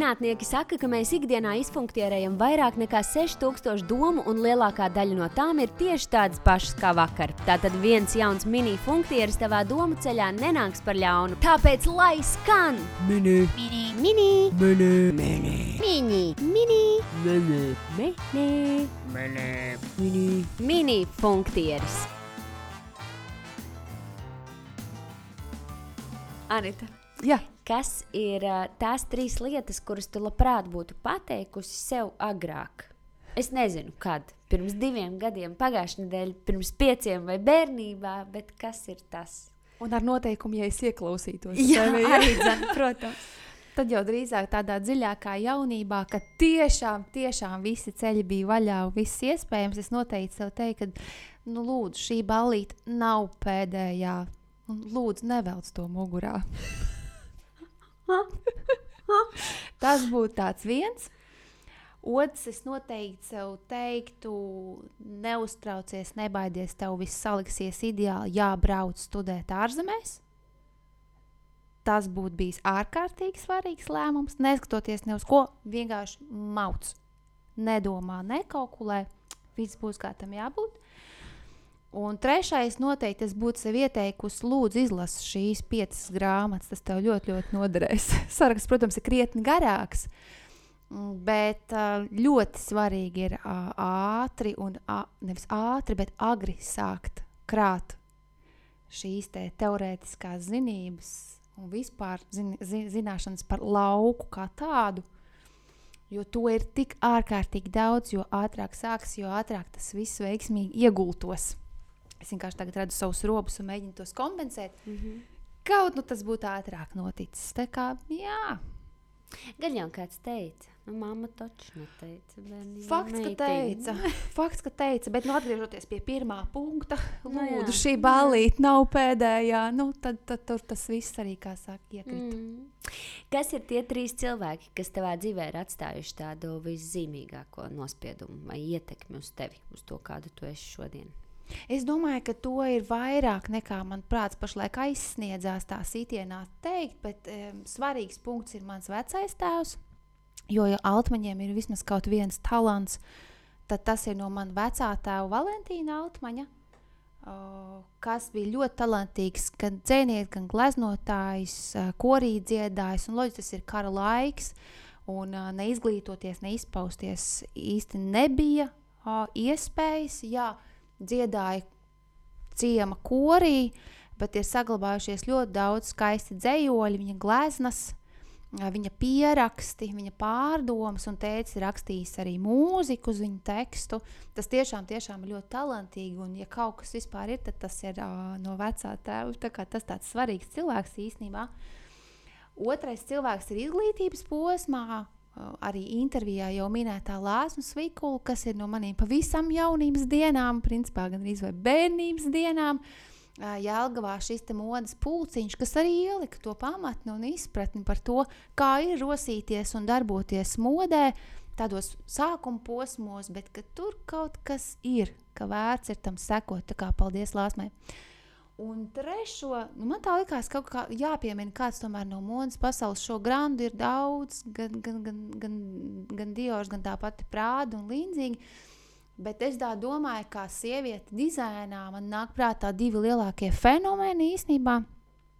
Zinātnieki saka, ka mēs ikdienā izfunktierējam vairāk nekā 6000 domu, un lielākā daļa no tām ir tieši tādas pašas kā vakar. Tātad viens jauns mini funktieris tavā domu ceļā nenāks par ļaunu. Tāpēc lai skan! Mini. Mini, mini, Mini. mini, mini, mini, Mini. mini, Mini. Mini. mini funktieris. Anita. Jā, Kas ir tās 3 lietas, kuras tu labprāt būtu pateikusi sev agrāk? Es nezinu, kad. Pirms 2 gadiem, pagājušajā nedēļā, pirms 5 vai bērnībā, bet kas ir tas? un ar noteikumu, ja es ieklausītos. Jā, sevi, arī dzan, protams. Tad jau drīzāk tādā dziļākā jaunībā, kad tiešām visi ceļi bija vaļā un viss iespējams, es noteikti sev teiktu, ka lūdzu, šī ballīte nav pēdējā. Un lūdzu, nevelc to mugurā. Tas būtu tāds viens. Otrs, es noteikti sev teiktu, neuztraucies, nebaidies, tev viss saliksies ideāli, jābrauc studēt ārzemēs. Tas būtu bijis ārkārtīgi svarīgs lēmums, neskatoties ne uz ko, vienkārši mauc. Nedomā, nekalkulē, viss būs kā tam jābūt. Un trešais noteikti es būtu sev ieteikusi, lūdzu izlasi šīs 5 grāmatas, tas tev ļoti, ļoti noderēs. Saraksts, protams, ir krietni garāks, bet ļoti svarīgi ir ātri un nevis ātri, bet agri sākt krāt šīs te teorētiskās zinības un vispār zināšanas par lauku kā tādu, jo to ir tik ārkārtīgi daudz, jo ātrāk sāks, jo ātrāk tas viss veiksmīgi iegultos. Es vienkārši tagad redzu savus robus un mēģinu tos kompensēt. Kaut tas būtu ātrāk noticis. Tā kā, jā. Gan jau kāds teica, mamma taču neteica. Fakts, ka teica, bet atgriežoties pie pirmā punkta, lūdzu, jā. šī ballīte nav pēdējā, tad tur tas viss arī, kā saka, iekrita. Kas ir tie 3 cilvēki, kas tavā dzīvē ir atstājuši tādu viszīmīgāko nospiedumu vai ietekmi uz tevi, uz to, kādu tu esi šodien? Es domāju, ka to ir vairāk nekā man prāts pašlaik aizsniedzās tā sitienā teikt, bet svarīgs punkts ir mans vecais tēvs, jo ja Altmaņiem ir vismaz kaut viens talants, tad tas ir no man vecā tēva Valentīna Altmaņa, kas bija ļoti talantīgs, gan dzēnieks, gan gleznotājs, korī dziedājs, un loģiski tas ir kara laiks, un neizglītoties, neizpausties īsti nebija iespējas, jā, dziedāja ciema korī, bet ir saglabājušies ļoti daudz skaisti dzejoļi, viņa gleznas, viņa pieraksti, viņa pārdomas, un tētis ir rakstījis arī mūziku uz viņu tekstu. Tas tiešām ir ļoti talantīgi, un ja kaut kas vispār ir, tad tas ir no vecā tēva, tā kā tas tāds svarīgs cilvēks īstenībā. Otrais cilvēks ir izglītības posmā, arī intervijā jau minētā Lāsma Svikula, kas ir no maniem pavisam jaunības dienām, principā gan arī vai bērnības dienām, Jelgavā šis te modas pulciņš, kas arī ielika to pamatni un izpratni par to, kā ir rosīties un darboties modē, tādos sākuma posmos, bet ka tur kaut kas ir, ka vērts ir tam sekot, tā kā paldies Lāsmai. Un trešo, man tā likās kaut kā jāpiemina kāds tomēr no modas pasaules, šo grandu ir daudz, gan Diors, gan tā pati Prāda un līdzīgi, bet es tā domāju, kā sieviete dizainā, man nāk prātā 2 lielākie fenomeni īstenībā.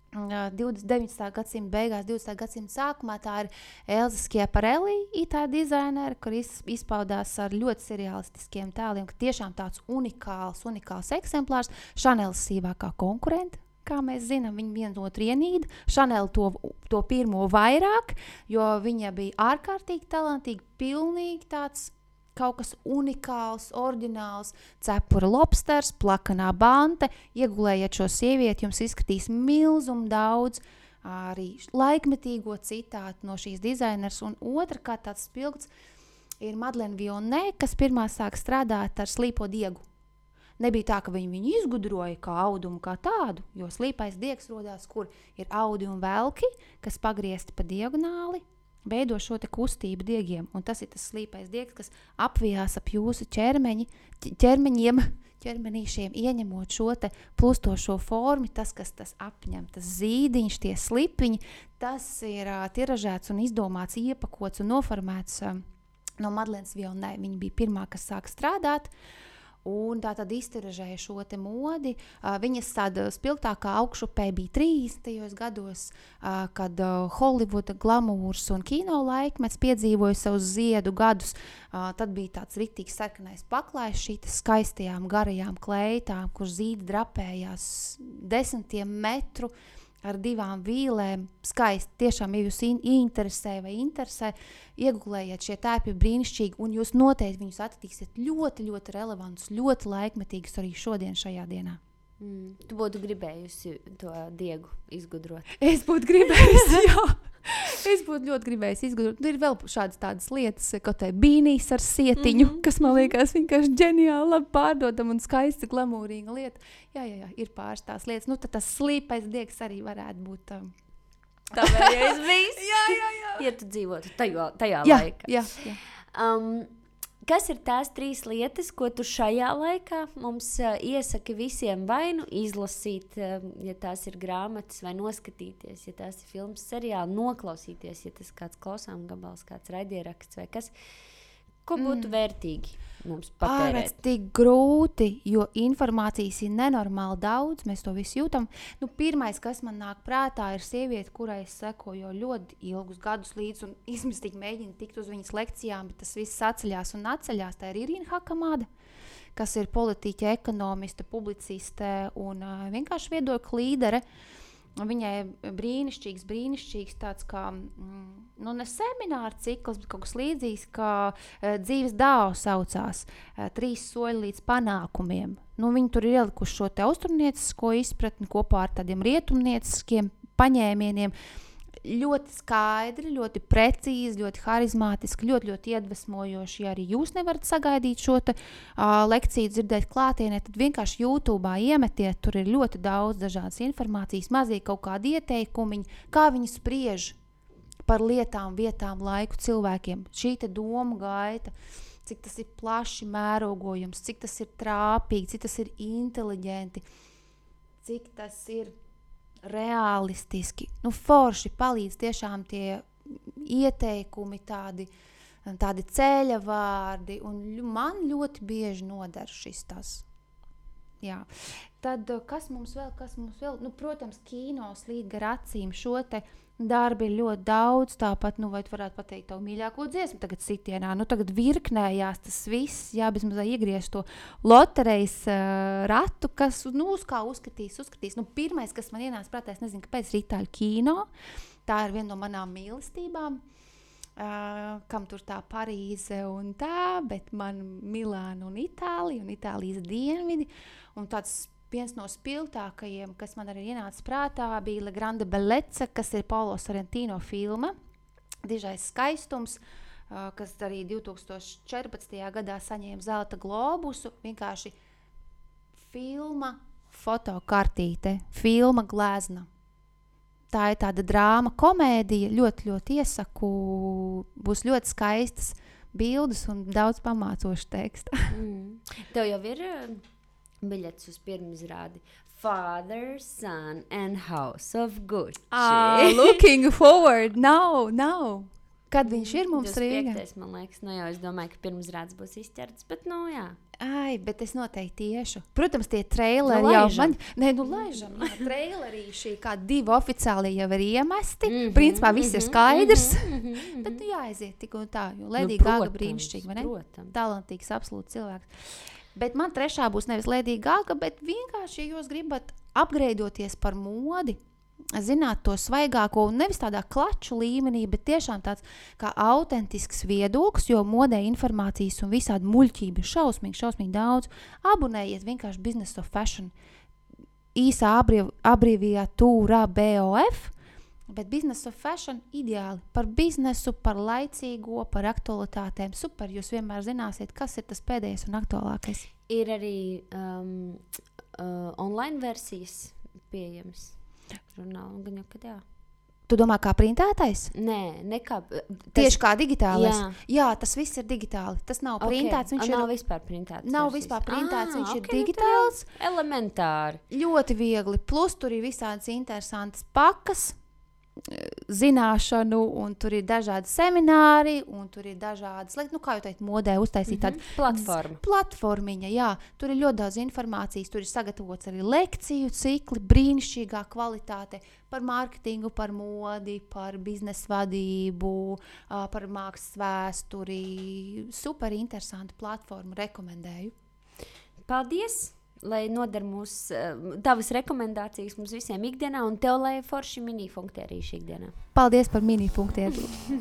19. gadsimta beigās, 20. gadsimta sākumā tā ir Elza Schiaparelli, itāļu dizainere, kur izpaudās ar ļoti seriālistiskiem tēliem, ka tiešām tāds unikāls eksemplārs, Chanel sīvākā konkurenta, kā mēs zinām, viņa viena otru ienīda, Chanel to pirmo vairāk, jo viņa bija ārkārtīgi talantīga, pilnīgi tāds kaut kas unikāls, oriģināls, cepura lobsters, plakanā bante, iegulējiet šo sievieti, jums izskatīs milzumu daudz arī laikmetīgo citātu no šīs dizainers, un otrkārt tāds spilgts ir Madeleine Vionnet, kas pirmā sāk strādāt ar slīpo diegu. Nebija tā, ka viņu izgudroja kā audumu kā tādu, jo slīpais diegs rodās, kur ir audi un velki, kas pagriezti pa diagonāli, veido šo te kustību diegiem, un tas ir tas slīpais diegs, kas apvijās ap jūsu ķermeņiem, ķermenīšiem, ieņemot šo te plustošo formu, tas, kas tas apņem, tas zīdiņš, tie slipiņi, tas ir tiražēts un izdomāts, iepakots un noformēts no Madlenes Vilnē. Viņa bija pirmā, kas sāka strādāt, un tā tad iztiražēja šo te modi. Viņas tāda spilgtākā augšupē bija 30. gados, kad Holivuda glamūrs un kino laikmets piedzīvoja savus ziedu gadus. Tad bija tāds ritīgs sarkanais paklājs šītas skaistajām garajām kleitām, kur zīdi drapējās 10 metru ar 2 vīlēm. Skaisti, tiešām, ja jūs interesē, iegūlējiet, šie tēpi brīnišķīgi, un jūs noteikti viņus attiksiet ļoti, ļoti relevantus, ļoti laikmetīgus arī šodien šajā dienā. Tu būtu gribējusi to diegu izgudrot? Es būtu gribējusi, jā. Es būtu ļoti gribējusi izgudrot. Ir vēl šādas tādas lietas, kaut tai bīnīs ar sietiņu, kas man liekas vienkārši ģeniāli, labi pārdodam un skaisti glamūrīga lieta. Jā, ir pāris tās lietas. Nu, tad tas slīpais diegs arī varētu būt Tavējais bijis? Jā. Ja tu dzīvotu tajā Jā. laikā. Kas ir tās 3 lietas, ko tu šajā laikā mums iesaki visiem vai nu izlasīt, ja tās ir grāmatas, vai noskatīties, ja tās ir filmas, seriāli, noklausīties, ja tas kāds klausām gabals, kāds raidieraksts vai kas, ko būtu vērtīgi mums patērēt? Tik grūti, jo informācijas ir nenormāli daudz, mēs to visu jūtam. Nu, pirmais, kas man nāk prātā, ir sieviete, kurai es sekoju ļoti ilgus gadus līdz un izmistīgi mēģinu tikt uz viņas lekcijām, bet tas viss atceļās un atceļās. Tā ir Irīna Hakamāda, kas ir politiķe, ekonomiste, publiciste un vienkārši viedokļu līdere. Viņai brīnišķīgs tāds kā, ne semināra cikls, bet kaut kas līdzīgs, kā dzīves dāvu saucās, 3 soļi līdz panākumiem. Viņi tur ir ielikuši šo te austrumniecisko izpratni kopā ar tādiem rietumnieciskiem paņēmieniem. Ļoti skaidri, ļoti precīzi, ļoti harizmātiski, ļoti iedvesmojoši. Ja arī jūs nevarat sagaidīt šo te, lekciju dzirdēt klātienē, tad vienkārši YouTube'ā iemetiet, tur ir ļoti daudz dažādas informācijas, mazīgi kaut kādi ieteikumiņi, kā viņi spriež par lietām, vietām, laiku cilvēkiem. Šī te doma gaita, cik tas ir plaši mērogojums, cik tas ir trāpīgi, cik tas ir inteliģenti, cik tas ir realistiski. Forši palīdz tiešām tie ieteikumi, tādi ceļa vārdi, un man ļoti bieži nodara šis tas. Jā. Tad, kas mums vēl? Protams, kino slīd gar acīm, šo te darbi ir ļoti daudz, tāpat, vai tu varētu pateikt tavu mīļāko dziesmu tagad sitienā, tagad virknējās tas viss, bez mazā iegriezt to loterejas ratu, kas, uz kā uzskatīs. Pirmais, kas man ienāca prātā, es nezinu, kāpēc, ir Itāļu kino, tā ir viena no manām mīlestībām, kam tur tā Parīze un tā, bet man Milāna un Itālija un Itālijas dienvidi, un tāds viens no spilgtākajiem, kas man arī ienāca prātā, bija La Grande Bellezza, kas ir Paolo Sorrentino filma, Dižais skaistums, kas arī 2014. gadā saņēma Zelta globusu, vienkārši filma fotokartīte, filma glezna. Tā ir tāda drāma, komēdija, ļoti, ļoti iesaku, būs ļoti skaistas bildes un daudz pamācošu teksta. Tev jau ir biļetes uz pirmizrādi Father, Son and House of Gucci. Looking forward, now. Kad viņš ir mums Rīgā? 25. man liekas, jau es domāju, ka pirmizrādes būs izķerts, bet jā. Bet es noteikti tiešu. Protams, tie traileri jau man... Laižam. Trailerīši, kā 2 oficiāli jau ir iemesti. Principā viss ir skaidrs. Bet jāaiziet tik un tā, jo Lady Gaga brīnišķīgi, vai ne? Protams. Talantīgs, absolūti cilvēks. Bet man 3. būs nevis Lady Gaga, bet vienkārši, ja jūs gribat apgreidoties par modi, zināt to svaigāko un nevis tādā klaču līmenī, bet tiešām tāds kā autentisks viedoklis, jo modē informācijas un visādi muļķība ir šausmīgi daudz. Abonējiet vienkārši Business of Fashion, īsā abrīviatūrā BOF, bet Business of Fashion ideāli par biznesu, par laicīgo, par aktualitātēm. Super, jūs vienmēr zināsiet, kas ir tas pēdējais un aktuālākais. Ir arī online versijas pieejamas žurnālam, gan jau, kad jā. Tu domā, kā printētais? Nē, nekā. Tieši kā digitālais? Jā. Jā, tas viss ir digitāli. Tas nav printēts. Viņš nav vispār printēts. Nav vispār printēts, viņš ir digitāls. Elementāri. Ļoti viegli. Plus tur ir visādas interesantas pakas, zināšanu, un tur ir dažādi semināri, un tur ir dažādas, kā jau teikt, modē uztaisīt tādu platformiņa, jā. Tur ir ļoti daudz informācijas, tur ir sagatavots arī lekciju cikli, brīnišķīgā kvalitāte par mārketingu, par modi, par biznesa vadību, par mākslas vēsturi. Super interesantu platformu, rekomendēju. Paldies! Lai noder tavas rekomendācijas mums visiem ikdienā, un tev, lai forši mini-funktierīši ikdienā. Paldies par mini-funktierīšu.